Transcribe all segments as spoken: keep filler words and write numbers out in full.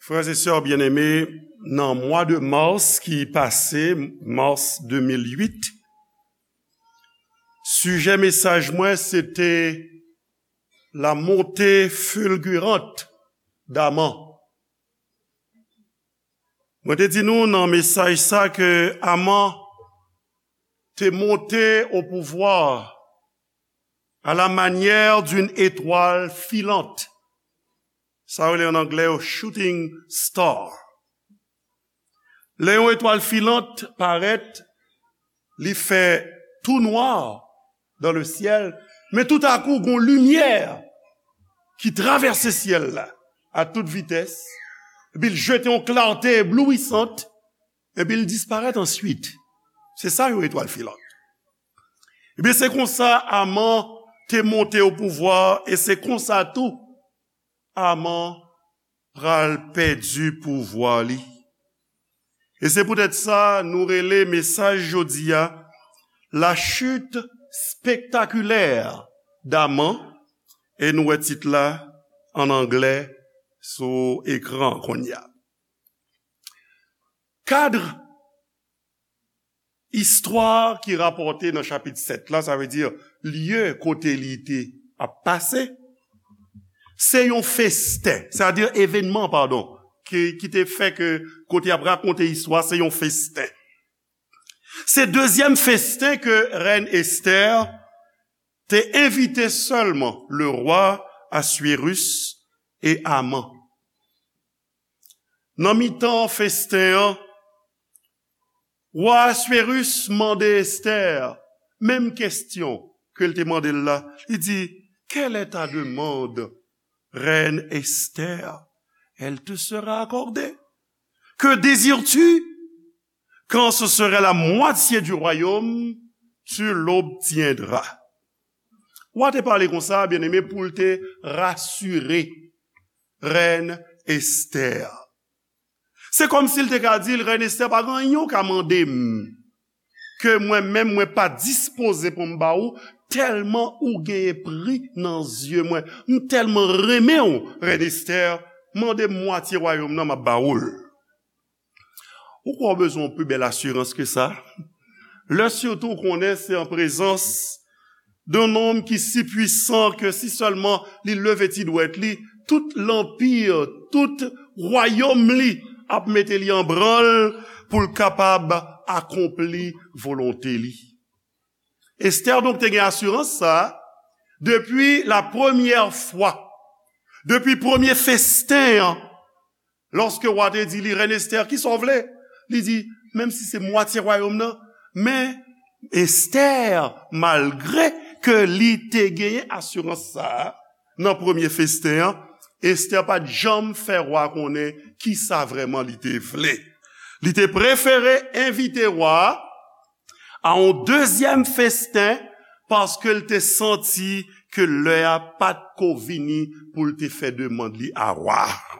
Frè e sè byeneme, nan mwa de mas ki pase, mas de mil uit, sijè mesaj mwen se te la montée fulgurante d'Aman. Mwen te di nou nan mesaj sa ke Aman te monte au pouvoir à la manière d'une étoile filante. Sa yo rele an anglè yo shooting star. Lè yon etwal filant parèt, li fè tou nwa dans le ciel, men toutakou gon limyè ki travèse syèl la a tout vitès, epi l jete yon klate eblouisant, epi l disparèt answit. Se sa yon etwal filant. Ebyen, se konsa Aman te monte o pouvwa, e se konsa tou Aman pral pèdi pouvwa li. E se poutèt sa nou rele mesaj jodi a, La chute spectaculaire d'Aman, e nou wè tit la an anglè sou ekran kounye a. Kad istwa ki rapòte nan chapit sèt la, sa vle di lye kote li te ap pase, se yon festen, sètadi evènman, padon, ki, ki te fè ke kote y ap rakonte istwa, se yon festen. Se dezyèm festen ke rèn Estè te envite sèlman le roi Assuérus e Aman. Nan mitan festen an, wa Assuérus mande Estè menm kesyon ke l te mande l la. Li di, Quelle est ta demande, reine Esther ? Elle te sera accordée. Que désires-tu ? Quand ce serait la moitié du royaume, tu l'obtiendras. Wa te pale konsa, byeneme, pou l te rasire rèn Estè. Se kòmsi l te ka di l, Rèn Estè, pa gen anyen w ka mande m ke mwen menm mwen pa dispoze pou m ba ou, tèlman ou genyen pri nan zye mwen. M tèlman renmen w, Rèn Estè, mande m mwatye wayòm nan, m ap ba ou l. Ou kwè w bezwen yon pi bèl asirans ke sa? Lè sitou w konnen se an prezans d'un homme ki si pwisan ke si sèlman li leve ti dwèt li, tout lanpi, tout wayòm li ap mete li an branl pou l kapab akonpli volonte li. Estè donk te gen asirans sa a depi la premyè fwa, depi premye festen an, lòske wa te di li, Rèn Estè, kisa w vle? Li di, menm si se mwatye wayòm nan, men Estè, malgre ke li te genyen asirans sa a nan premye festen an, Estè pa t janm fè wa konnen kisa vrèman li te vle. Li te prefere envite wa a a yon dezyèm festen, paske l te santi ke lè a pa t ko vini pou l te fè demann li a wa a.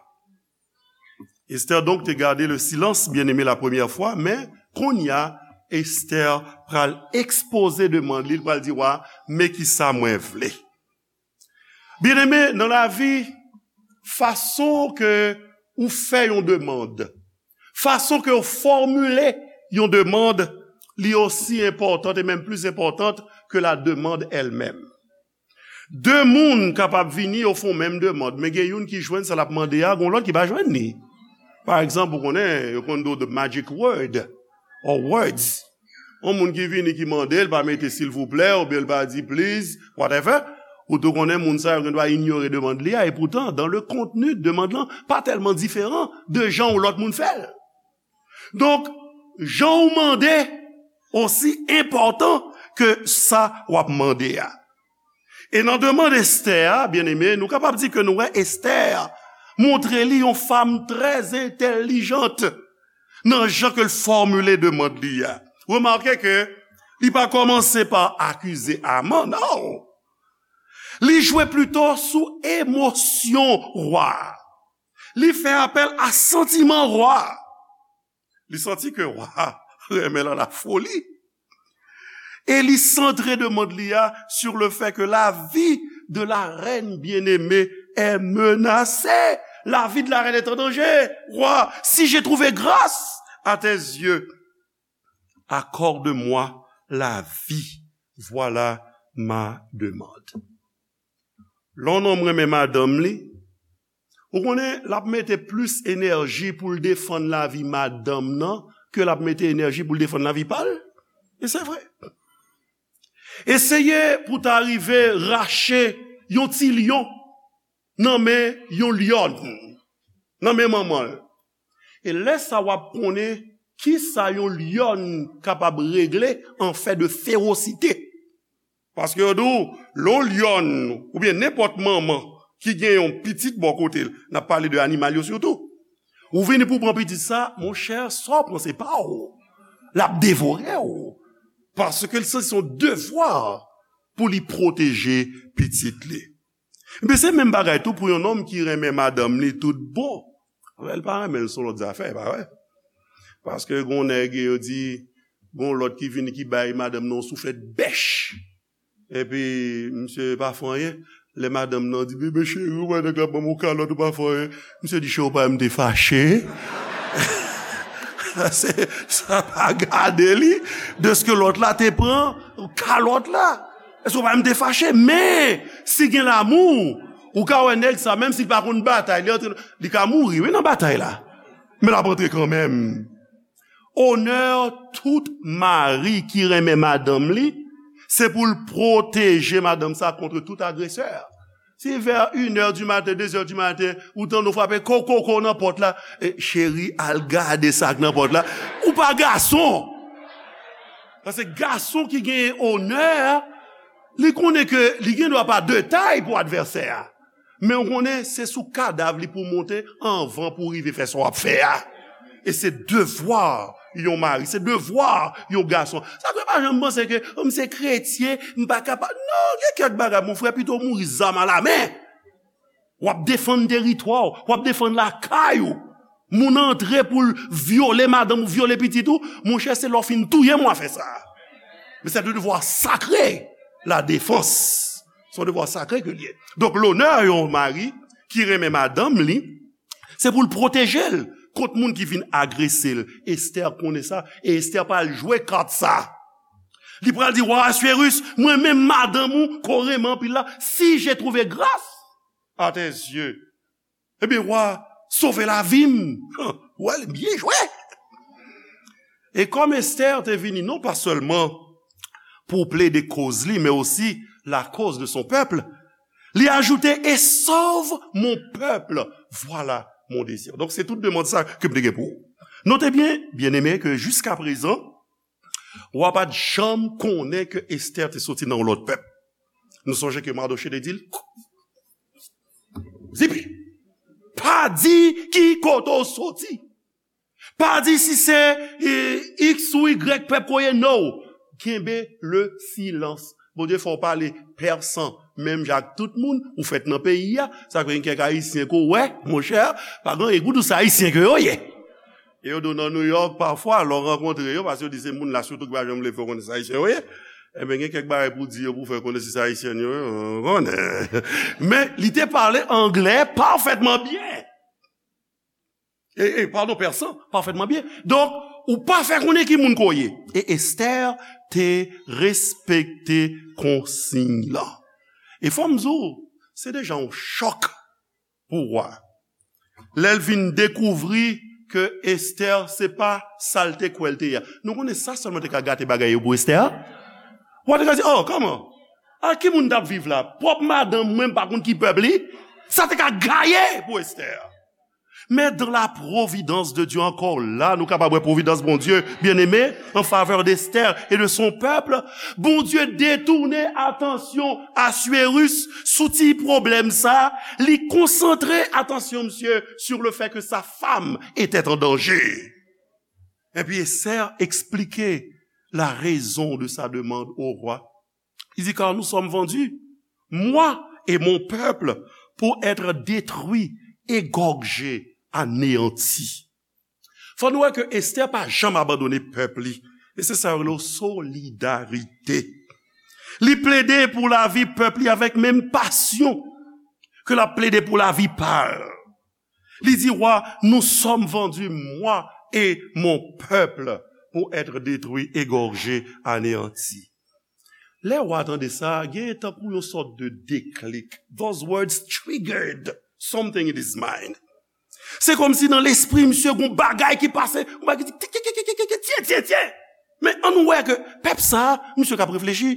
Esther donc te garde le silence, bien-aimé, la première fois, men kounye a, Esther pral ekspoze demann li, li pral di wa, men kisa mwen vle. Byeneme, nan lavi, fason ke ou fè yon demann, fason ke ou fòmile yon demann, li osi enpòtan, e menm plis enpòtan ke la demann èl menm. De moun kapab vini, yo fè yon menm demann, men gen youn ki jwenn sa l ap mande a, gen lòt ki pa jwenn li. Pa egzanp, ou konnen, yo konn di w the magic word, or words. Yon moun ki vini ki mande, l pa mete silvouplè, oubyen l pa di please, whatever. Ou tou konnen moun sa yo gen dwa inyore demann li a, e poutan, dans le contenu de demann lan, pa tèlman diferan de jan yon lòt moun fè l. Donk, jan w mande osi enpòtan ke sa w ap mande a. E nan demann Esther a, byeneme, nou kapab di ke nou wè Esther montre li yon fanm trè entèlijant nan jan ke l fòmile demann li a. Remake ke li pa kòmanse pa akize Aman, non. Li jwe plito sou emosyon wa a. Li fè apèl a santiman wa a. Li santi ke wa a renmen l a la foli. E li santre demann li a sur le fait que la vie de la reine bien-aimée est menacée. La vie de la reine est en danger. Roi, si j'ai trouvé grâce à tes yeux, accorde-moi la vie. Voilà ma demande. Lè yon nonm renmen madanm li, ou konnen l ap mete plis enèji pou l defann lavi madanm nan ke l ap mete enèji pou l defann lavi pa l. E se vre. Eseye pou ta rive rache yon ti lyon nan men yon lyòn, nan men manman l. E lè sa w ap konnen kisa yon lyòn kapab regle an fè de fewosite. Paske yo di w, lè yon lyòn oubyen nenpòt manman ki gen yon pitit bò kote l, n ap pale de animal yo sitou, ou vini pou w pran pitit sa, monchè, sa w pran se pa w. L ap devore w. Paske l santi se yon devwa pou li pwoteje pitit li. Ebyen, se menm bagay tou pou yon nonm ki renmen madanm li tout bon. Anben, l pa renmen l, se yon lòt zafè, e pa vre? Paske gen yon nèg, yo di, gen yon lòt ki vini, ki bay madanm nan yon souflèt bèch. Epi, misye pa fè anyen. Lè madanm nan di, "Bebe cheri, ou wè nèg la ban m yon kalòt, ou pa fè anyen." Misye di, "Cheri, ou pa wè m te fache?" Se, sa pa gade li, dèske lòt la te pran kalòt la. Èske ou pa wè m te fache? Men, si gen lamou, ou ka wè nèg sa, menm si l pa konn batay, li antre, li ka mouri, wi, nan batay la. Men l ap antre kanmenm. Onè tout mari ki renmen madanm li, se pou l pwoteje madanm sa kont tout agresè. Si vè inè di maten, dezè di maten, ou tande w frape ko, ko, ko nan pòt la, e, cheri, al gade sa k nan pòt la. Ou pa gason. Paske gason ki genyen onè, li konnen ke li gen dwa pa de tay pou advèsè a. Men ou konnen, se sou kadav li pou w monte anvan pou w rive fè sa w ap fè a. E se devwa yon mari, se devwa yon gason. Sa fè pa janm panse ke, "Oh, m se kretyen, m pa kapab." Non, gen kèk bagay, mon frè, pito w mouri zam alamen. W ap defann teritwa w, w ap defann lakay ou. Moun antre pou l vyole madanm ou, vyole pitit ou, monchè, se lè w fin touye m w a fè sa. Men se de devwa sakre, la defans. Se yon devwa sakre ke l ye. Donk, lonè yon mari ki renmen madanm li, se pou l pwoteje l kont moun ki vin agrese l. Estè konnen sa, e Estè pral jwe kat sa. Li pral di, "Wa Aswérus, mwen menm madanm ou, ke w renmen anpil la, si j'ai trouvé grâce à tes yeux, ebyen, wa, sove lavi m." Wè, li byen jwe. E kòm Estè te vini non pa sèlman pou plede koz li, men osi la cause de son peuple, li ajoute, "Et sauve mon peuple, voilà mon désir." Donk, se tout demann sa ke m te gen pou ou. Note byen, byeneme, ke jiskaprezan, wa pa t janm konnen ke Estè te soti nan yon lòt pèp. Nou sonje ke Madoche te di l, "Zipi, pa di ki kote w soti. Pa di si se, e, X ou Y pèp ke w ye, no. Kenbe le silans." Bondye fè w pale pèsan, menm jan ak tout moun, ou fèt nan peyi a. Sa fè gen kèk Ayisyen ke w wè, monchè, pa gen anyen pou w di w se Ayisyen ke yo ye. E yo di w nan New York, pafwa, lè w rankontre yo, paske yo di se moun la sitou ki pa janm vle fè w konnen se Ayisyen yo ye. Enben, gen kèk bagay pou w di yo, pou w fè konnen si se Ayisyen yo ye, w konnen. Men, li te pale anglè pafètman byen. E, e, padon, pèsan, pafètman byen. Donk, ou pa fè konnen ki moun ke w ye. E Estè te respekte konsiy lan. E fò m di w, se deja yon chòk pou wa. Lè l vin dekouvri ke Estè se pa sa l te kwè l te ye a. Nou konnen sa sèlman te ka gate bagay yo pou Estè. Wa te ka di, "Oh, kòman? A ki moun t ap viv la? Pwòp madanm mwen, m pa konn ki pèp li." Sa te ka gaye pou Estè. Men dans la providence de Dieu, ankò la, nou kapab wè pwovidans Bondye, byeneme, en faveur d'Esther et de son peuple. Bondye detounen atansyon Aswérus sou ti pwoblèm sa, li konsantre atansyon misye sur le fait que sa femme était en danger. Epi Esther explique la raison de sa demande au roi. Il dit, car nous sommes vendus, moi et mon peuple, pour être détruits, égorgés, anéantis. Fò nou wè ke Esther pa janm abandone pèp li. E se sa yo rele solidarite. Li plede pou lavi pèp li avèk menm pasyon ke l ap plede pou lavi pa l. Li di wa, nous sommes vendus, moi et mon peuple, pour être détruits, égorgés, anéantis. Lè wa tande sa, gen tankou yon sòt de deklik. Those words triggered something in his mind. Se kòmsi nan lespri misye gon bagay ki pase, gon bagay ki di, tye, tye, tye, tye. Men ann wè ke pèp sa, misye k ap reflechi.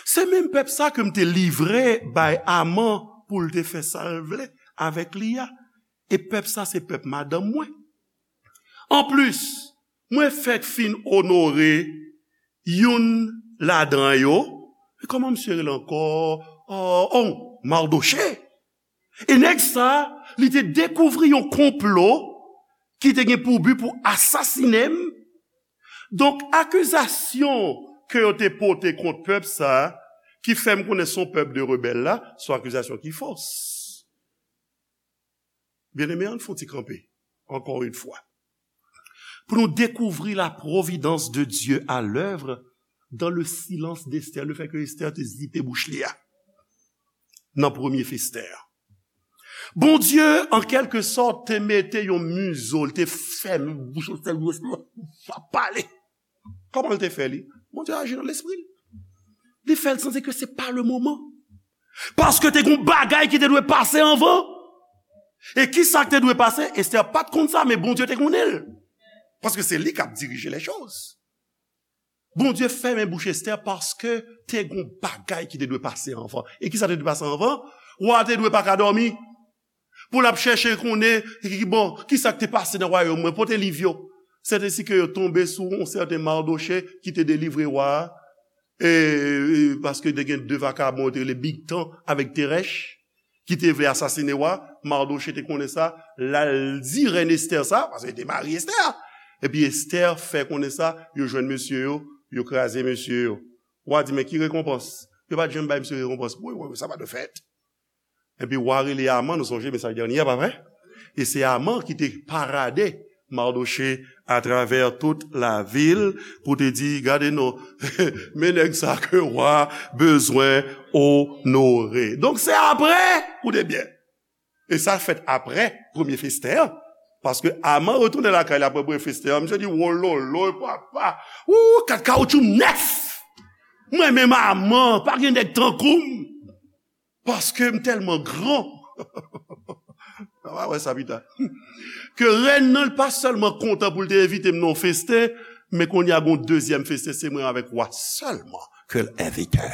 Se menm pèp sa ke m te livre bay Aman pou l te fè sa l vle avèk li a. E pèp sa se pèp madanm mwen. Anplis, mwen fèk fin onore youn ladan yo. E kòman misye rele ankò? Oh, oh, Mardochée. E nèg sa, li te dekouvri yon konplo ki te gen pou bi pou asasinen m. Donk, akizasyon ke yo te pote kont pèp sa, ki fè m konnen se yon pèp de rebèl la, se yon akizasyon ki fos. Byeneme, ann fè yon ti kanpe, encore une fois. Pou nou dekouvri la providence de Dieu à l'œuvre dans le silence d'Esther, le fait que Esther te zipe bouch li a. Nan premye fè Esther. Bondye, an kèlke sòt, te mete yon mizo, li te fèmen bouch Esther, li pa pale. Kòman l te fè li? Bondye aji nan lespri l. Li fè l santi ke se pa le moman. Paske te gon bagay ki te dwe pase anvan. E kisa k te dwe pase? Esther pa t konn sa, men Bondye te konnen l. Paske se li k ap dirije lè choz. Bondye fèmen bouch Esther paske te gon bagay ki te dwe pase anvan. E kisa te dwe pase anvan? Wa te dwe pa ka dòmi. Pou l ap chèche konnen, bon, kisa k te pase nan wayòm mwen, pote liv yo. Sèt ensi ke yo tonbe sou yon sèten Mardochée ki te delivre wa a, e, e, paske te gen de vakabon yo te rele Bigtan avèk Terèch, ki te vle asasinen wa. Mardochée te konnen sa, l al di rèn Esther sa, paske li te mari Esther. Epi Esther fè konnen sa, yo jwenn mesye yo, yo kraze mesye yo. Wa di, men ki rekonpans? Yo pa t janm bay misye rekonpans. Wi, wi, wi, sa pa dwe fèt. Epi wa rele Aman, nou sonje mesaj dènye a, pa vre? E se Aman ki te parade Mardochée atravè tout lavil pou te di, gade non, men nèg sa ke wa bezwen onore. Donk se apre, koute byen. E sa fèt apre premye fè Esther an. Paske Aman retounen lakay li apre premye fè Esther an, misye di, wololo, papa, ou, kat kawoutchou m nèf. Mwen menm Aman, pa gen nèg tankou m. Paske m tèlman gran. N a wè sa pita. Ke rèn nan, li pa sèlman kontan pou l te envite m nan yon festen, men kounye a gon dezyèm festen, se mwen avèk wa sèlman ke l envite.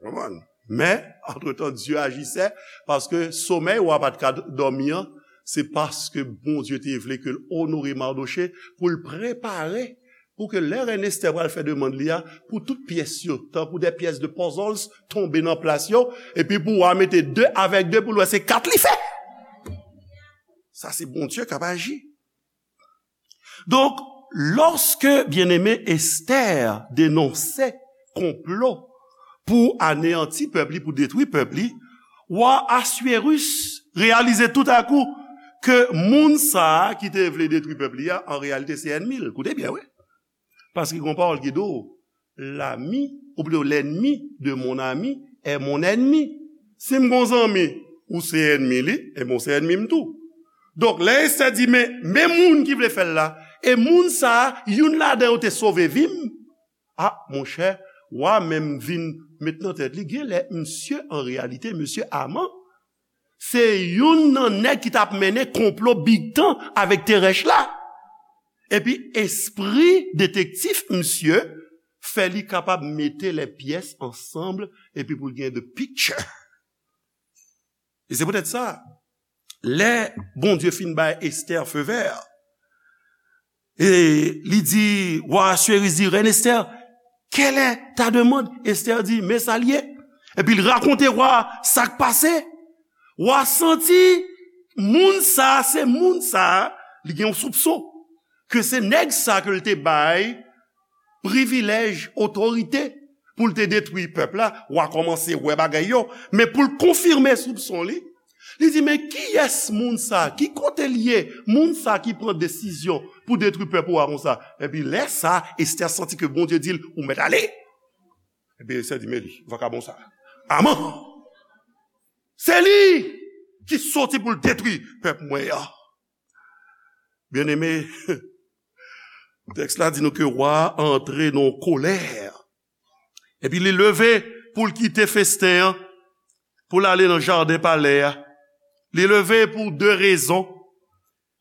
Konprann? Men, antretan, Dye ajisè, paske somèy wa pa t ka dòmi an, se paske Bondye te vle ke l onore Mardochée, pou l prepare pou ke lè rèn Esther pral fè demann li a, pou tout pyès yo, tankou de pyès de puzzles, tonbe nan plas yo, epi pou w a mete de avèk de pou l wè se kat li fè. Sa se Bondye k ap aji. Donk, lòske byeneme Esther denonse konplo pou aneyanti pèp li, pou detwi pèp li, wa Aswérus reyalize toutakou ke moun sa a ki te vle detwi pèp li a, an reyalite se ènmi l. Koute byen, wi. Paske gen yon pawòl ki di w, l'ami, ou plito l'ennemi de mon ami est mon ennemi. Si m gon zanmi, ou se ènmi li, ebyen ou se ènmi m tou. Donk, lè Esther di, men, men moun ki vle fè l la, e moun sa a, youn ladan yo te sove vi m, a, monchè, wa menm vin met nan tèt li, genlè misye, an reyalite, mesye Aman, se youn nan nèg ki t ap mennen konplo Bigtan avèk Terèch la. Epi espri detektif misye fè li kapab mete les pièces ensemble epi pou l gen the picture. E se poutèt sa, lè Bondye fin bay Esther feu vert, e li di, wa Aswérus di, rèn Esther, quelle est ta demande? Esther di, men sa l ye. Epi l rakonte wa sa k pase. Wa santi moun sa, se moun sa, li gen yon soupson ke se nèg sa ke l te bay privilèj, otorite pou l te detwi pèp la. Wa kòmanse wè bagay yo, men pou l konfime soupson li, li di, men kiyès moun sa? Ki kote l ye? Moun sa ki pran desizyon pou detwi pèp ou a konsa? Epi lè sa, Esther santi ke Bondye di l, ou mèt ale. Epi Esther di, men li, vakabon sa. Aman! Se li li soti pou l detwi pèp mwen an. Byeneme, tèks la di nou ke wa a antre nan kolè. Epi li leve pou l kite festen an, pou l ale nan jaden palè a. Li leve pou de rezon.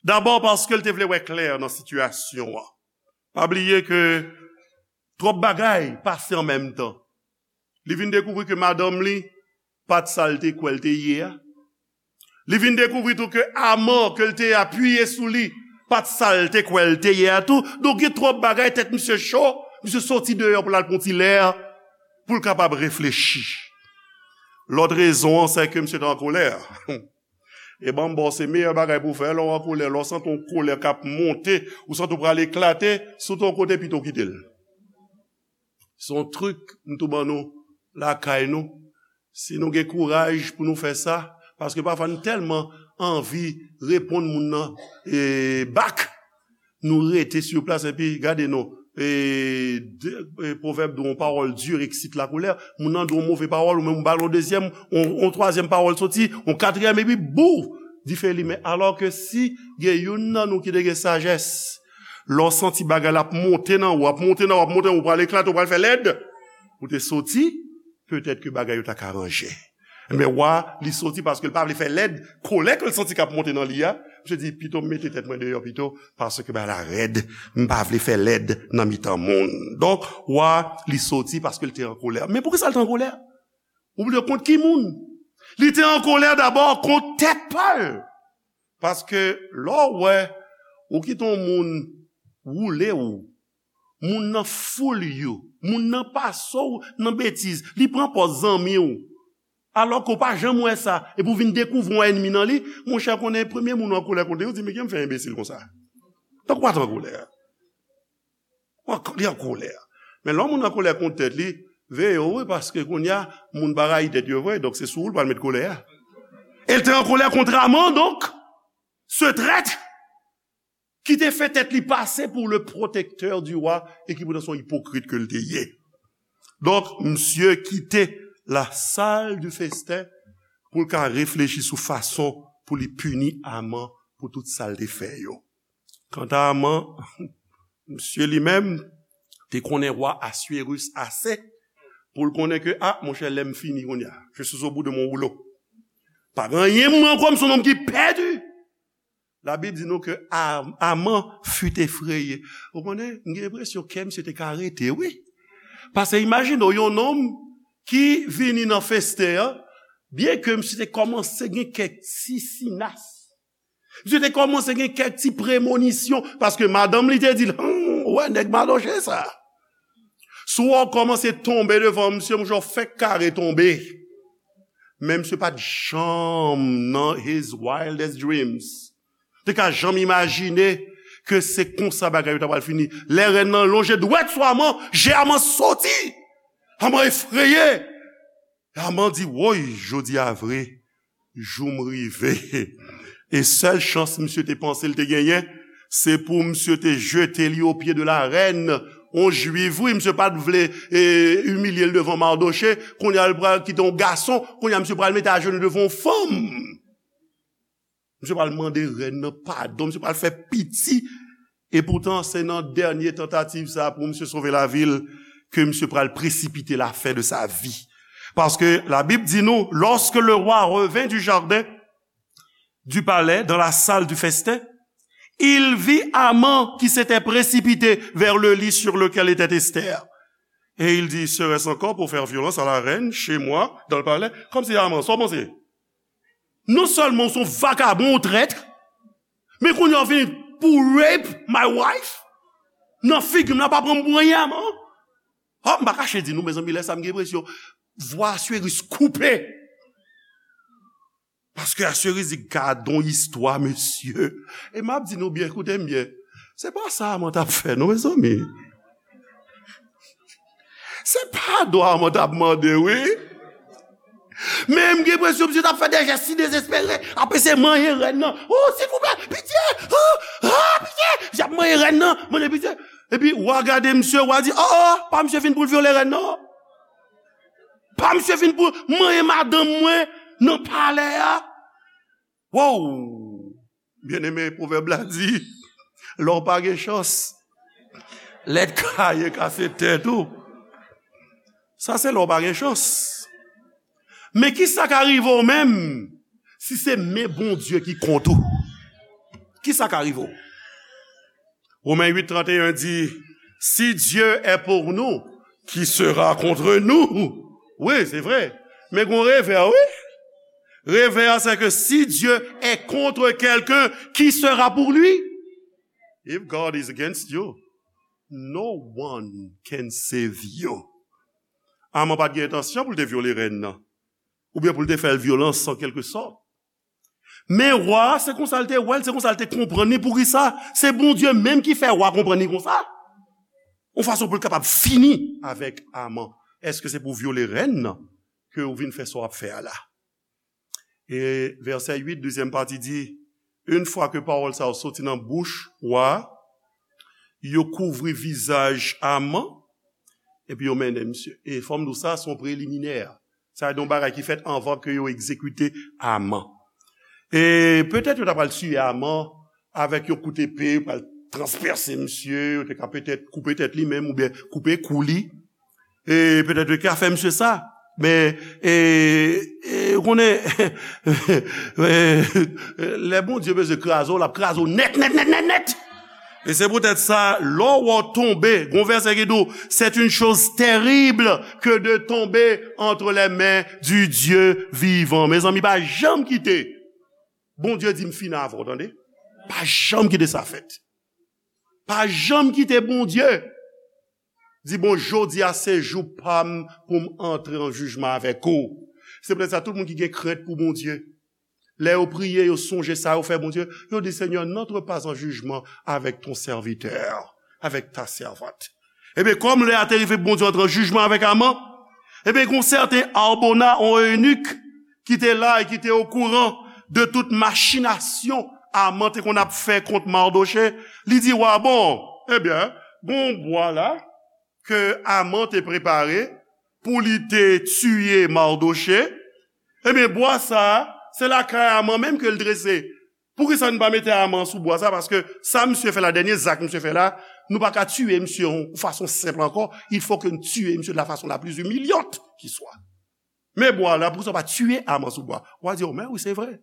Dabò, paske l te vle wè klè nan sitiyasyon an. Pa bliye ke twòp bagay pase an menm tan. Li vin dekouvri ke madanm li pa t sa l te kwè l te ye a. Li vin dekouvri tou ke Aman ke l te apiye sou li pa t sa l te kwè l te ye a tou. Donk, gen twòp bagay, tèt misye cho, misye soti deyò pou l al pran ti lè pou l kapab reflechi. Lòt rezon an, se ke misye te an kolè. E ban m ba w, se meyè bagay pou w fè, lè w an kolè, lè w santi yon kolè k ap monte, ou santi w pral eklate, si w te yon kote, pito w kite l. Se yon trik m tou ban nou lakay nou. Si nou gen kouraj pou nou fè sa, paske pafwa nou tèlman anvi reponn moun nan, e, bak, nou rete sou plas epi gade non. E, de, e, pwovèb di yon parole dure excite la colère. Moun nan di yon move pawòl, ou menm ou ba l yon dezyèm, yon, yon twazyèm pawòl soti, yon katriyèm, epi bou, dife limen. Alò ke si gen youn nan nou ki te gen sajès, lè w santi bagay la ap monte nan ou, ap monte nan ou, ap monte nan ou, ou pral eklate, ou pral fè lèd, ou te soti, petèt ke bagay yo ta ka ranje. Men wa, li soti paske l pa vle fè lèd, kolè ke l santi k ap monte nan li a. Misye di, pito m mete tèt mwen deyò pito, paske bagay la rèd, m pa vle fè lèd nan mitan moun. Donk, wa, li soti paske l te an kolè. Men poukisa l te an kolè? Ou bliye kont ki moun? Li te an kolè dabò kont tèt pa l. Paske lè w wè, ou kite yon moun woule w, moun nan foule you, moun nan pase w nan betiz, li pran pòz zanmi w, alò ke w pa janm wè sa, epi w vin dekouvri yon ènmi nan li, monchè, konnen premye moun w an kolè kont li, ou di, "Men kijan m fè enbesil konsa?" Tankou w pa t an kolè. Ou an, li an kolè. Men lè yon moun an kolè kont tèt li, veye w, wi, paske kounye a, moun pa rayi tèt yo vre, donk se sou ou l pral met kolè a. E l te an kolè kont Aman, donk, ce traître, ki te fè tèt li pase pou le protecteur du roi e ki poutan se yon ipokrit ke l te ye. Donk, misye kite la salle du festin pou l ka reflechi sou fason pou li pini Aman pou tout sa l te fè yo. Kanta Aman, misye li menm te konnen wa Aswérus ase pou l konnen ke, a, monchè, lè m fini kounye a. Je suis au bout de mon rouleau. Pa gen anyen pou mwen ankò, m se yon nonm ki pèdi. Labib di nou ke Am-, Aman fut effrayé. Ou konnen, m gen enpresyon kè misye te ka rete, wi. Paske imajine w, yon nonm ki vini nan festen an, byenke misye te kòmanse gen kèk ti sinas, misye te kòmanse gen kèk ti premonisyon, paske madanm li te di l, "Hum, ou wè nèg Madoche sa. Si w wè w kòmanse tonbe devan misye, monchè, w fèk kare tonbe." Men misye pa t janm nan his wildest dreams te ka janm imajine ke se konsa bagay yo ta pral fini. Lè rèn nan lonje dwèt sou Aman, je Aman soti. Aman efreye. Aman di, "Woy, jodi a vre, jou m rive." E sèl chans misye te panse l te genyen, se pou misye te jete li o pye de la rèn, yon jwif, wi, misye pa t vle, e, imilye l devan Madoche, kounye a l pral kite yon gason, kounye a misye pral mete ajenou devan yon fanm. Misye pral mande rèn nan padon, misye pral fè piti. E poutan, se nan dènye tantativ sa a pou misye sove lavi l ke misye pral presipite la fin de sa vie. Paske Labib di nou, lorsque le roi revint du jardin du palais, dans la salle du festin, il vit Aman qui s'était précipité vers le lit sur lequel était Esther. Et il dit, "Serait-ce encore pour faire violence à la reine, chez moi, dans le palais?" Kòmsi Aman, sa w panse? Non sèlman w se yon vakabon, yon trèt, men kounye a w vini pou rape my wife? Nan figi m nan, pa pran m pou anyen, Aman. Oh, m pa kache di nou, mezanmi, lè sa m gen enpresyon vwa Aswérus koupe. Paske Aswérus di, "Gadon istwa, mesye." E m ap di nou byen, koute m byen. Se pa sa Aman t ap fè, non, mezanmi. Se padon Aman t ap mande, wi. Men m gen enpresyon misye t ap fè de jès si dezespere, ap eseye manyen rèn nan. "Oh, silvouplè, pitye! Oh, oh, pitye!" Misye ap manyen rèn nan, mande pitye. Epi, wa gade misye, wa di, "Oh, oh, pa misye vin pou l vyole rèn nan. Pa misye vin pou manyen madanm mwen nan palè a." Wow! Byeneme, pwovèb la di, lè w pa gen chans, lèt kaye kase tèt ou. Sa se lè w pa gen chans. Men kisa ka rive w menm si se men Bondye ki kont ou? Kisa ka rive w? Romen uit trannteyen di, si Dieu est pour nous, qui sera contre nous? Wi, se vre. Men gon revè, wi. Revè a, se ke si Dieu est contre quelqu'un, qui sera pour lui? If God is against you, no one can save you. Aman pa t gen entansyon pou l te vyole rèn nan, oubyen pou l te fè l vyolans an kèlke sòt. Men wa a, se konsa l te wè l, se konsa l te konprann li. Poukisa? Se Bondye menm ki fè wa a konprann li konsa. Yon fason pou l kapab fini avèk Aman. Èske se pou vyole rèn nan ke w vin fè sa w ap fè a la? E vèsè uit, dezyèm pati di, yon fwa ke pawòl sa yo soti nan bouch wa a, yo kouvri vizaj Aman, epi yo mennen misye. E fò m di w sa, se yon preliminè. Sa se yon bagay ki fèt anvan ke yo egzekite Aman. E petèt yo ta pral tiye Aman avèk yon kout epe, yo pral transpèse misye, yo te ka petèt koupe tèt li menm oubyen koupe kou li. E petèt yo te ka fè misye sa. Men, e, e, ou konnen, e, lè Bondye bezwen kraze w, l ap kraze w nèt, nèt, nèt, nèt, nèt. E se poutèt sa, lè w tonbe, gon vèsè ki di w, c'est une chose terrible que de tomber entre les mains du Dieu vivant. Mezanmi, pa janm kite Bondye di m fini avè w, tande. Pa janm kite sa fèt. Pa janm kite Bondye di, bon, jodi a se jou pa m pou m antre an jijman avèk ou. Se poutèt sa, tout moun ki gen krent pou Bondye, lè yo priye, yo sonje sa yo fè Bondye, yo di, Seigneur, n'entre pas en jugement avec ton serviteur, avec ta servante. Ebyen, kòm lè a te rive pou Bondye antre an jijman avèk Aman, ebyen, gon sèten Arbona, yon enik, ki te la e ki te okouran de tout machinasyon Aman te konn ap fè kont Mardochée, li di wa, bon, ebyen, gon bwa la ke Aman te prepare pou li te tiye Mardochée. Ebyen, bwa sa a, se lakay Aman menm ke l drese. Poukisa nou pa mete Aman sou bwa sa? Paske sa misye fè la, dènye zak misye fè la, nou pa ka tiye misye yon fason senp ankò. Il faut que nou tiye misye de la façon la plus humiliante qui soit. Men bwa la, poukisa w pa tiye Aman sou bwa? W a di, o, men wi, se vre.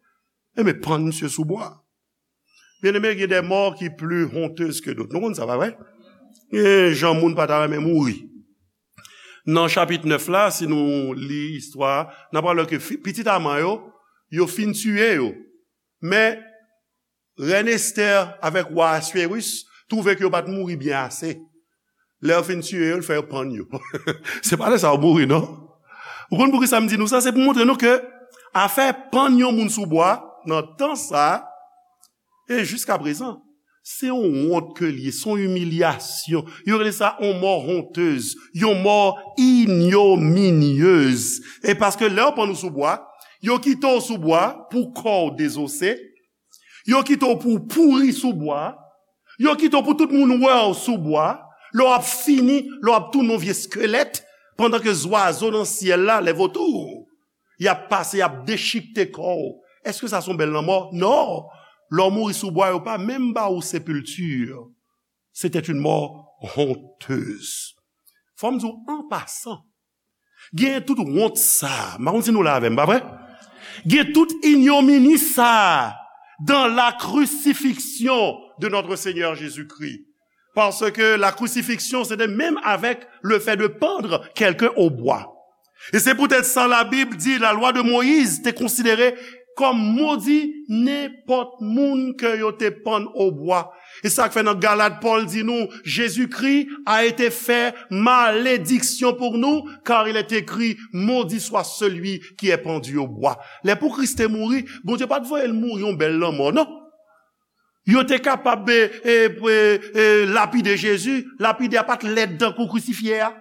E men pann misye sou bwa. Byeneme, gen des morts ki pli honteuses que d'autres. Nou konn sa, pa vre? Gen jan moun pa ta renmen mouri. Nan chapit nèf la, si nou li istwa a, n ap wè ke fi- pitit Aman yo, yo fin tiye yo. Men, rèn Estè avèk wa Aswéris twouve ke yo pa t mouri byen ase. Lè yo fin tiye yo, l fè yo pann yo. Se pa lè sa yo mouri, non. Ou konn poukisa m di nou sa? Se pou montre nou ke afè pann yon moun sou bwa, nan tan sa a, e jiska prezan, se yon wont ke l ye, se yon imilyasyon. Yo rele sa yon mò hontez, yon mò ignominieuse. E paske lè yo pann ou sou bwa, yo kite w sou bwa pou kò w dezose, yo kite w pou w pouri sou bwa, yo kite w pou tout moun wè w sou bwa, lè w ap fini, lè w ap tounen yon vye eskelèt, pandan ke zwazo nan syèl la, les vautours, y ap pase, y ap dechikte kò w. Èske sa se yon bèl lanmò? Non. Lè w mouri sou bwa, yo pa menm ba ou sepilti. C'était une mort honteuse. Fò m di w, an pasan, gen tout wont sa a. M pa konn si nou la avè m, pa vre? Gen tout ignomini sa a dans la crucifixion de notre Seigneur Jésus-Christ. Parce que la crucifixion, c'était même avec le fait de pendre quelqu'un au bois. E se poutèt sa Labib di, la loi de Moïse te konsidere kòm modi nenpòt moun ke yo te pann o bwa. E sa k fè nan Galat, Pòl di nou, Jésus-Christ a été fait malédiction pour nous, car il est écrit, maudit soit celui qui est pendu au bois. Lè pou Kris te mouri, Bondye pa t voye l mouri yon bèl lanmò, non. Yo te kapab, e, e, e, e, lapide Jezi, lapide a pa t lèd tankou krisifye a.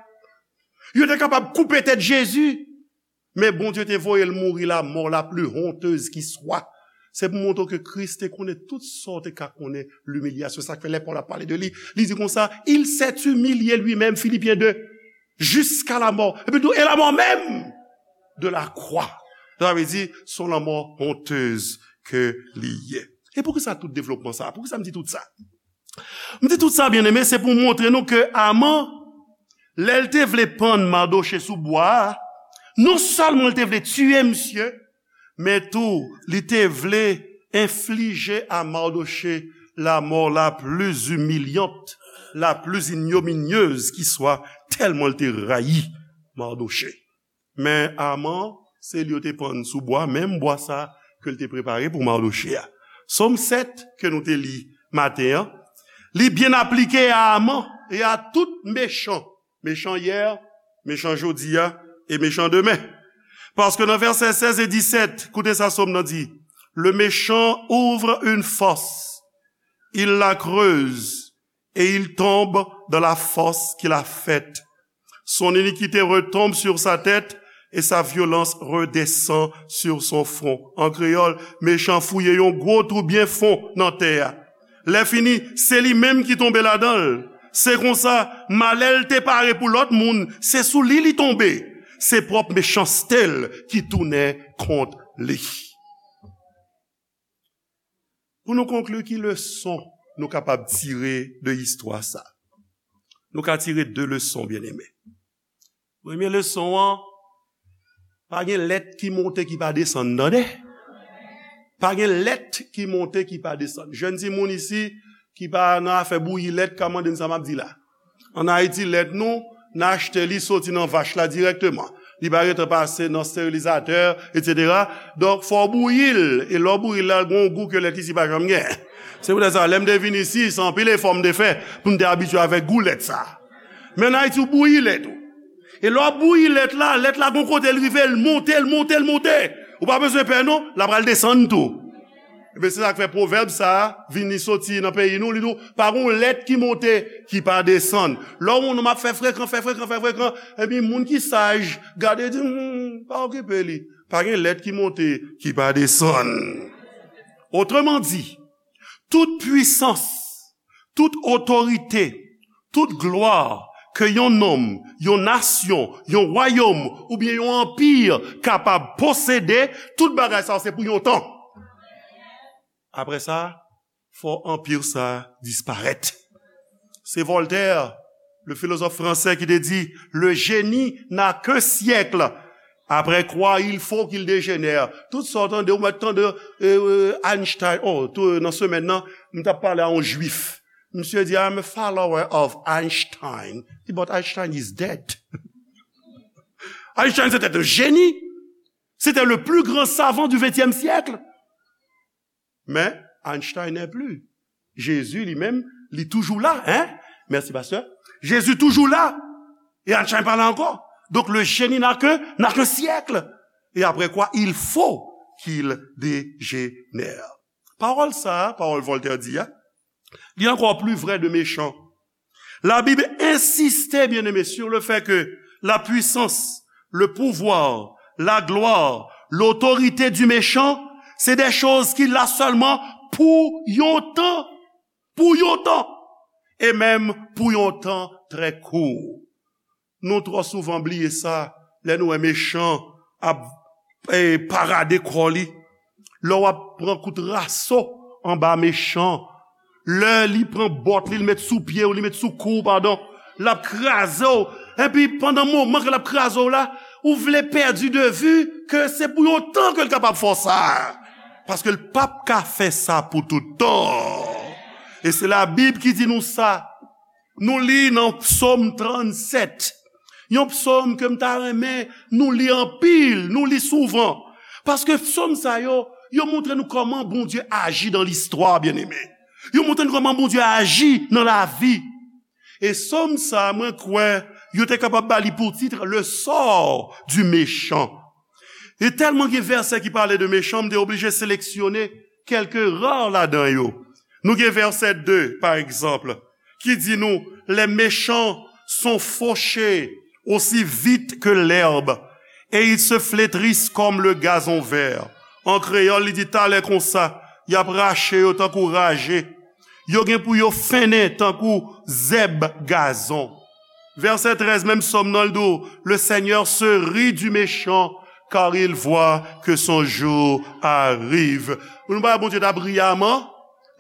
Yo te kapab koupe tèt Jezi, men Bondye te voye l mouri la mort la plus honteuse qui soit. Se pou montre w ke Kris te konnen tout sa w te ka konnen, limilyasyon. Sa k fè lè Pòl ap pale de li, li di konsa, il s'est humilié lui-même, Philippiens deux, jusqu'à la mort. Epi tou, et la mort même de la croix. Sa vle di, se yon lanmò hontez ke li ye. E poukisa tout devlopman sa? Poukisa m di tout sa? M di tout sa, byeneme, se pou montre nou ke Aman, lè l te vle pann Madoche sou bwa a, non sèlman l te vle tiye misye, men tou, li te vle enflije a Madoche la mort la plus humiliante, la plus ignominieuse qui soit, tèlman l te rayi Madoche. Men Aman, se li yo te pann sou bwa, menm bwa sa ke l te prepare pou Madoche a. Sòm sèt ke nou te li maten an, li byen aplike a Aman e a tout mechan, mechan yè, mechan jodi a e mechan demen. Paske nan vèsè sèz e disèt, koute sa Sòm nan di, le méchant ouvre une fosse, il la creuse et il tombe dans la fosse qu'il a faite. Son iniquité retombe sur sa tête et sa violence redescend sur son front. An kreyòl, mechan fouye yon gwo twou byen fon nan tè a. Lè fini, se li menm ki tonbe ladan l. Se konsa, malè l te pare pou lòt moun, se sou li li tonbe. Se pwòp mechanste l ki tounen kont li. Pou nou konkli, ki leson nou kapab tire de istwa sa? Nou ka tire de leson, byeneme. Premye leson an, pa gen lèt ki monte ki pa desann, tande? Pa gen lèt ki monte ki pa desann. Jèn timoun isi ki pa nan afè bouyi lèt ka mande m sa m ap di la. Ann Ayiti, lèt nou, n achte li soti nan vach la dirèkteman. Li pa gentan pase nan sterilizatè, etsetera. Donk, fò w bouyi l. E lè w bouyi l la, l gen yon gou ke lèt isi pa janm gen. Se poutèt sa, lè m te vin isi, se anpil efò m te fè pou m te abitye avèk gou lèt sa. Men ann Ayiti, w bouyi lèt ou. E lè w ap bouyi lèt la, lèt la gon kote l rive, l monte, l monte, l monte. Ou pa bezwen pè non, l ap al desann tou. Ebyen, se sa k fè pwovèb sa a vini soti nan peyi nou, li di w, pa gon lèt ki monte, ki pa desann. Lè w wè yon nonm ap fè frekan, fè frekan, fè frekan, epi moun ki saj, gade, di, hmm, pa okipe li. Pa gen lèt ki monte, ki pa desann. Otreman di, tout pwisans, tout otorite, tout glwa ke yon nonm, yon nasyon, yon wayòm oubyen yon anpi kapab posede, tout bagay sa yo se pou yon tan. Apre sa, fò anpi sa disparèt. Se Voltaire, le philosophe français, ki te di, le génie n'a qu'un siècle, après quoi il faut qu'il dégénère. Tout sa w tande, ou mèt tande, euh, euh, Einstein, oh, tou, nan semèn nan, m t ap pale a yon jwif. Misye di, I'm a follower of Einstein. Li di, but Einstein is dead. Einstein, c'était un génie. C'était le plus grand savant du vingtième siècle. Mais Einstein n'est plus. Jésus lui-même, li toujou la, hein? Merci, pasteur. Jésus toujours là. Et Einstein pas là encore. Donc le génie n'a que, n'a qu'un siècle. Et après quoi, il faut qu'il dégénère. Pawòl sa a, pawòl Voltaire di a, li ankò pli vrè de mechan. La Bible insiste, bien-aimé, sur le fait que la puissance, le pouvoir, la gloire, l'autorité du méchant, c'est des choses qu'il a seulement pour yon tan, pour yon tan, et même pour yon tan très court. Nou twò souvan bliye sa lè nou wè mechan ap, eh, parade kò li. Lè w ap pran kout raso anba mechan, lè li pran bòt li, li met sou pye w, li met sou kou w, padon, l ap kraze w. Epi pandan moman ke l ap kraze w la, ou vle pèdi de vi ke se pou yon tan ke l kapab fè w sa. Paske l p ap ka fè sa pou tout tan. E se Labib ki di nou sa. Nou li nan Psòm trannsèt. Yon psòm ke m ta renmen nou li anpil, nou li souvan. Paske psòm sa yo, yo montre nou kòman Bondye aji dan listwa, byeneme. Yo montre nou kòman Bondye aji nan lavi. E psòm sa, mwen kwè, yo te kapab ba li pou tit, le sort du méchant. E tèlman gen vèsè ki pale de mechan, m te oblije seleksyone kèlke ra ladan yo. Nou gen vèsè de, pa egzanp, ki di nou, les méchants sont fauchés aussi vite que l'herbe, et ils se flétrissent comme le gazon vert. An kreyòl, li di talè konsa, y ap rache yo tankou raje. Yo gen pou yo fennen tankou zèb gazon. Vèsè trèz, menm psòm nan, l di w, le Seigneur se rit du méchant car il voit que son jour arrive. Nou pa wè Bondye t ap ri Aman?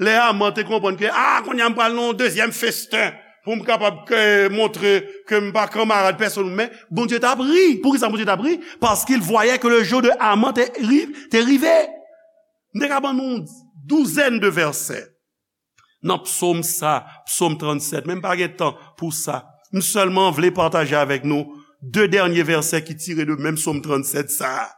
Lè Aman te konprann ke, ah, kounye a m pral nan yon dezyèm festen pou m kapab ke, montre ke m pa kanmarad pèsonn, men Bondye t ap ri. Poukisa Bondye t ap ri? Parce qu'il voyait que le jour de Haman te ri-, te rive. M te ka ban nou yon douzèn de vèsè nan psaume sa, psaume tranntsèt, men m pa gen tan pou sa. M sèlman vle pataje avèk nou de dènye vèsè ki tire de menm psaume tranntsèt sa a,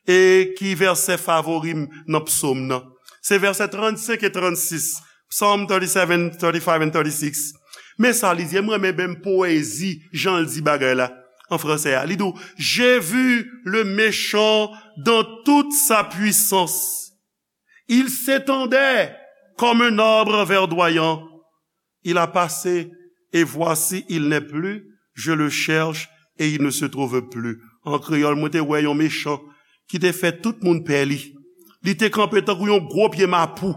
e ki vèsè favori m nan psaume nan. Se vèsè trannsenk e trannsis, Psalm thirty-seven, thirty-five and thirty-six. Men sa li di, e m renmen menm powezi jan l di bagay la an fransè a. Li di w, j'ai vu le méchant dans toute sa puissance. Il s'étendait comme un arbre verdoyant. Il a passé, et voici, il n'est plus. Je le cherche, et il ne se trouve plus. An kreyòl, mwen te wè yon mechan ki te fè tout moun pè li. Li te kanpe tankou yon gwo pye mapou.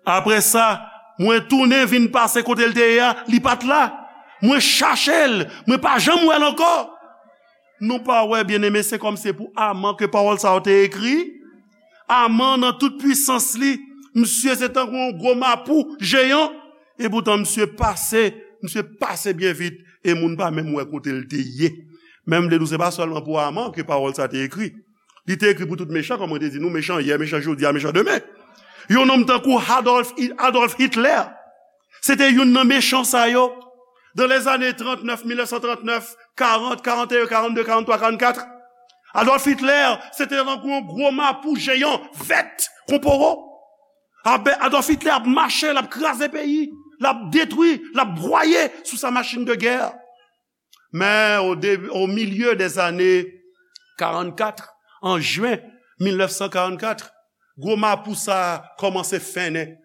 Apre sa, mwen tounen vin pase kote l te ye a, li pa t la. Mwen chache l, mwen pa janm wè l ankò. Nou pa wè, byeneme, se kòm se pou Aman ke pawòl sa yo te ekri. Aman, nan tout pwisans li, misye se tankou yon gwo mapou jeyan. Epoutan, misye pase, misye pase byen vit, e moun pa menm wè kote l te ye. Men m vle di w, se pa sèlman pou Aman ke pawòl sa te ekri. Li te ekri pou tout mechan, kòm mwen te di nou, mechan yè, mechan jodi a, mechan demen. Yon nonm tankou Adolf, Adolf Hitler, se te youn nan mechan sa yo. Dans les années trente-neuf, mil nèf san trannèf, karant, karannteyen, karannde, karannntwa, karannkat, Adolf Hitler, se te tankou yon gwo mapou jeyan, vèt, kon powo. Abe-, Adolf Hitler ap mache, l ap kraze peyi, l ap detwi, l ap bwaye sou sa machin de gè. Men, o de-, o milye dèzane karannkat, an jen mil nèf san karannkat, gwo mapou sa a kòmanse fennen.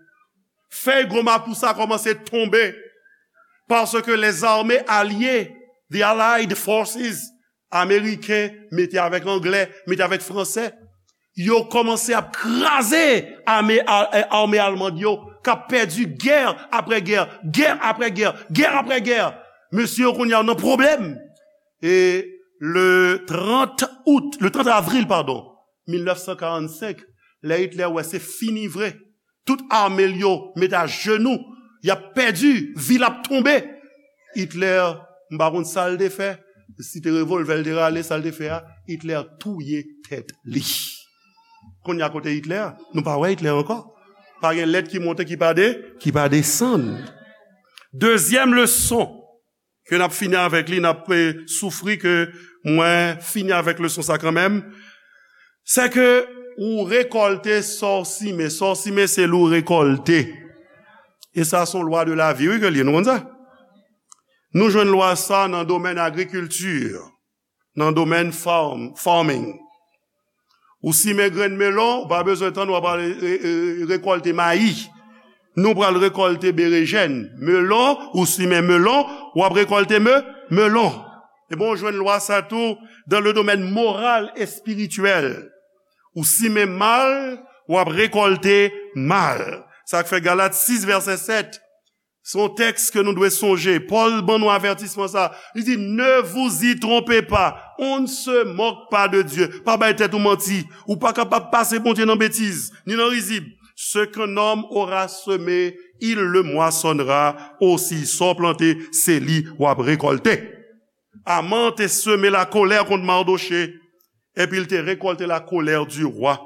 Fèy gwo mapou sa a kòmanse tonbe. Paske lèzame alye, the allied forces, ameriken mete avèk anglè, mete avèk fransè, yo kòmanse ap kraze ame, a-, ame almann yo, k ap pèdi gè apre gè, gè apre gè, gè apre gè. Mesye yo kounye a nan pwoblèm. E le trant out, le trant avril, padon, mil nèf san karannsenk, lè Hitler wè se fini vre, tout ame l yo met ajenou, y ap pèdi, vil ap tonbe. Hitler, m pa konn sa l te fè, si te revòlvè l te rale, sa l te fè a, Hitler touye tèt li. Kounye a kote Hitler? Nou pa wè Hitler ankò. Pa gen lèt ki monte ki pa de, ki pa desann. Dezyèm leson ke n ap fini avèk li, n ap, eh, soufri ke mwen fini avèk leson sa kanmenm, se ke ou rekòlte sa w simen. Sa w simen, se li w rekòlte. E sa se yon lwa de lavi, wi, ke l ye. Nou konn sa? Nou jwenn lwa sa nan domèn agrikilti, nan domèn farm, farming. Ou simen grenn melon, ou pa bezwen tann w ap al, e, e, rekòlte mayi. Nou pral rekòlte berejèn. Melon, ou simen melon, w ap rekòlte me-, melon. Ebyen, ou jwenn lwa sa tou dans le domaine moral et spirituel. Ou simen mal, w ap rekòlte mal. Sa k fè Galat sis vèsè sèt, se yon tèks ke nou dwe sonje. Pòl ban nou avètisman sa. Li di, ne vous y trompez pas, on ne se moque pas de Dieu. Pa bay tèt ou manti. Ou pa kapab pase Bondye nan betiz, ni nan rizib. Ce qu'un homme aura semé, il le moissonnera aussi. Sa w plante, se li w ap rekòlte. Aman te seme lakolè kont Mardoche, epi l te rekòlte la colère du roi.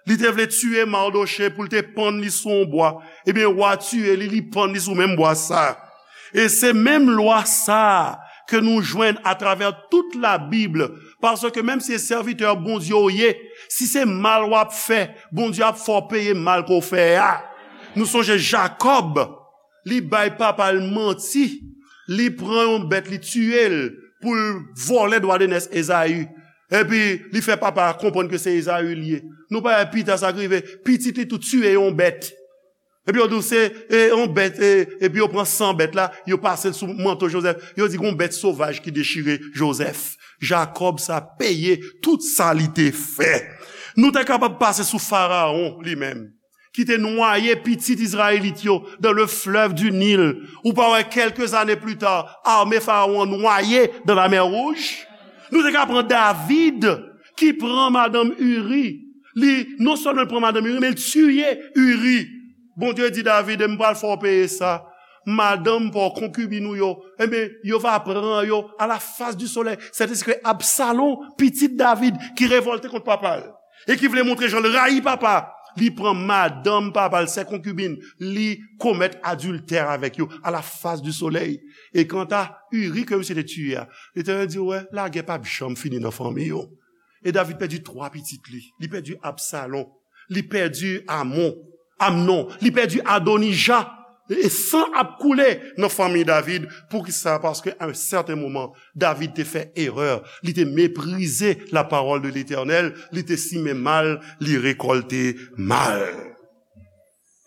Li te vle tiye Mardoche pou l te pann li sou yon bwa. Ebyen, wa tiye li, li pann li sou menm bwa sa. E se menm lwa sa ke nou jwenn atravè tout Labib, paske menm si se sèvitè Bondye w ye, si se mal w ap fè, Bondye ap fè w peye mal ke w fè a. Nou sonje Jakòb, li bay papa l manti, li pran yon bèt, li tiye l pou l vòlè dwa de nès Ezayi. Epi, li fè papa a konprann ke se Ezayi l ye. Nou pa wè pita sa k rive, pitit li tou tiye yon bèt. Epi yo di w se, e, yon bèt, e, epi yo pran san bèt la, yo pase l sou manto Jozèf. Yo di gon bèt sovaj ki dechire Jozèf. Jakòb sa peye tout sa li te fè. Nou te kapab pase sou Farawon li menm, ki te nwaye pitit Izrayelit yo dans le fleuve du Nil. Ou pa wè, quelques années plus tard, ame Farawon an nwaye dans la mer Rouge? Nou te ka pran David, ki pran madanm Iri. Li, non sèlman l pran madanm Iri, men l tiye Iri. Bondye di David, "E m pral fè w peye sa. Madanm pa w, konkibin ou yo, ebyen, yo va pran yo à la face du soleil." Sètèske Absalon, pitit David, ki revòlte kont papa l, e ki vle montre jan l rayi papa, li pran madanm papa l, sè konkibin, li komèt adiltè avèk yo à la face du soleil. E kanta Iri ke misye te tiye a, Letènèl di, "Wè, lagè p ap janm fini nan fanmi yo." E David pèdi twa pitit li. Li pèdi Absalon. Li pèdi Amon, Amnon. Li pèdi Adonija. E san ap koule nan fanmi David. Poukisa? Paske a yon sèten moman, David te fè erè. Li te meprize la parole de l'Éternel. Li te simen mal, li rekòlte mal.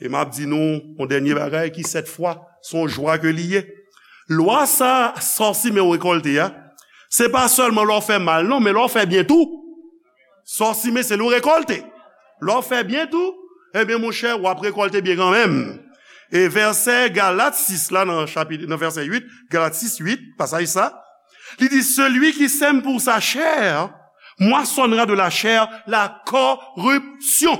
E m ap di nou yon dènye bagay ki sèt fwa, se yon jwa ke li ye. Lwa sa, sa w simen w rekòlte a, se pa sèlman lè w fè mal non, men lè w fè byen tou. Sa w simen, se li w rekòlte. Lè w fè byen tou, ebyen, monchè, w ap rekòlte byen kanmenm. E vèsè Galat sis la, nan chapit, nan vèsè uit, Galat sis uit, pasaj sa, li di, "Celui qui sème pour sa chair moissonnera de la chair la corruption."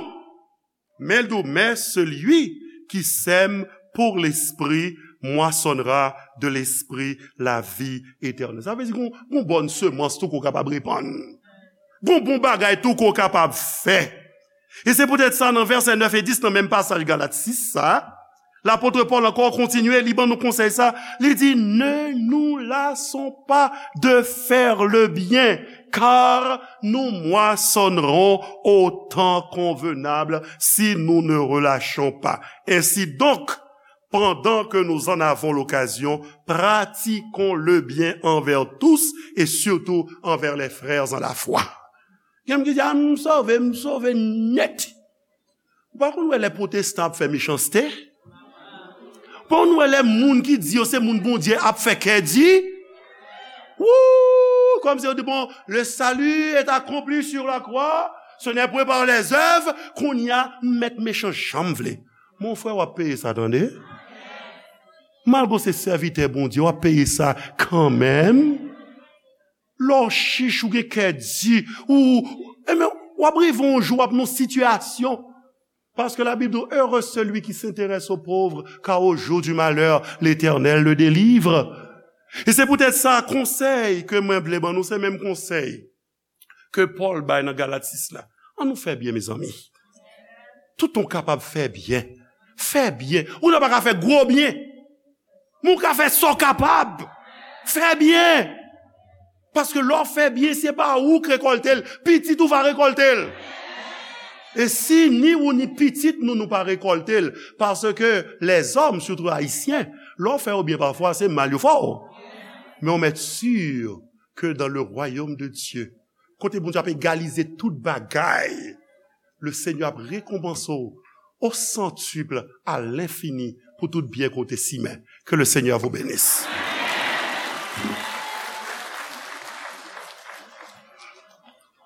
Men l di w, "Mais celui qui sème pour l'esprit moissonnera de l'esprit la vie éternelle." Sa vle di gon, gon bòn semans tou ke w kapab repann. Gon bon bagay tou ke w kapab fè. E se poutèt sa, nan vèsè nèf e dis nan menm pasaj Galat sis sa, lapot Pòl ankò kontinye, li ban nou konsèy sa, li di, "Ne nous lassons pas de faire le bien, car nous moissonnerons au temps convenable si nous ne relâchons pas. Ainsi donc, pendant que nous en avons l'occasion, pratiquons le bien envers tous et surtout envers les frères en la foi." Gen moun ki di, "A, m sove, m sove nèt." Ou pa konn wè lè pwotestan ap fè mechanste? Ou pa konn wè lè moun ki di yo se moun Bondye ap fè kè di? Wou! Kòmsi yo di, "Bon, le salut est accompli sur la croix, ce n'est point par les œuvres." Kounye a, m mèt mechan jan m vle. Mon frè, w ap peye sa, tande. Malgre w se sèvitè Bondye, w ap peye sa kanmenm. Lè w chich, ou gen kè di, ou, ebyen, w ap rive yon jou, w ap nan sitiyasyon. Paske Labib di, "Heureux celui qui s'intéresse aux pauvres, car au jour du malheur, l'Éternel le délivre." E se poutèt sa, konsèy ke mwen vle ban nou, se menm konsèy ke Pòl bay nan Galat sis la. An nou fè byen, mezanmi. Tout moun kapab fè byen. Fè byen. Ou nan pa ka fè gwo byen. Men w ka fè sa w kapab. Fè byen. Paske lè w fè byen, se pa ou k rekòlte l, pitit ou va rekòlte l. E si ni ou ni pitit nou, nou pa rekòlte l, paske lèzòm, sitou ayisyen, lè w fè yo byen pafwa, se mal yo fè w. Men w mèt si ke dans le royaume de Dieu, kote Bondye ap egalize tout bagay, le Seigneur ap rekonpanse w au centuple, à l'infini, pou tout byen ke w te simen. Que le Seigneur vous bénisse.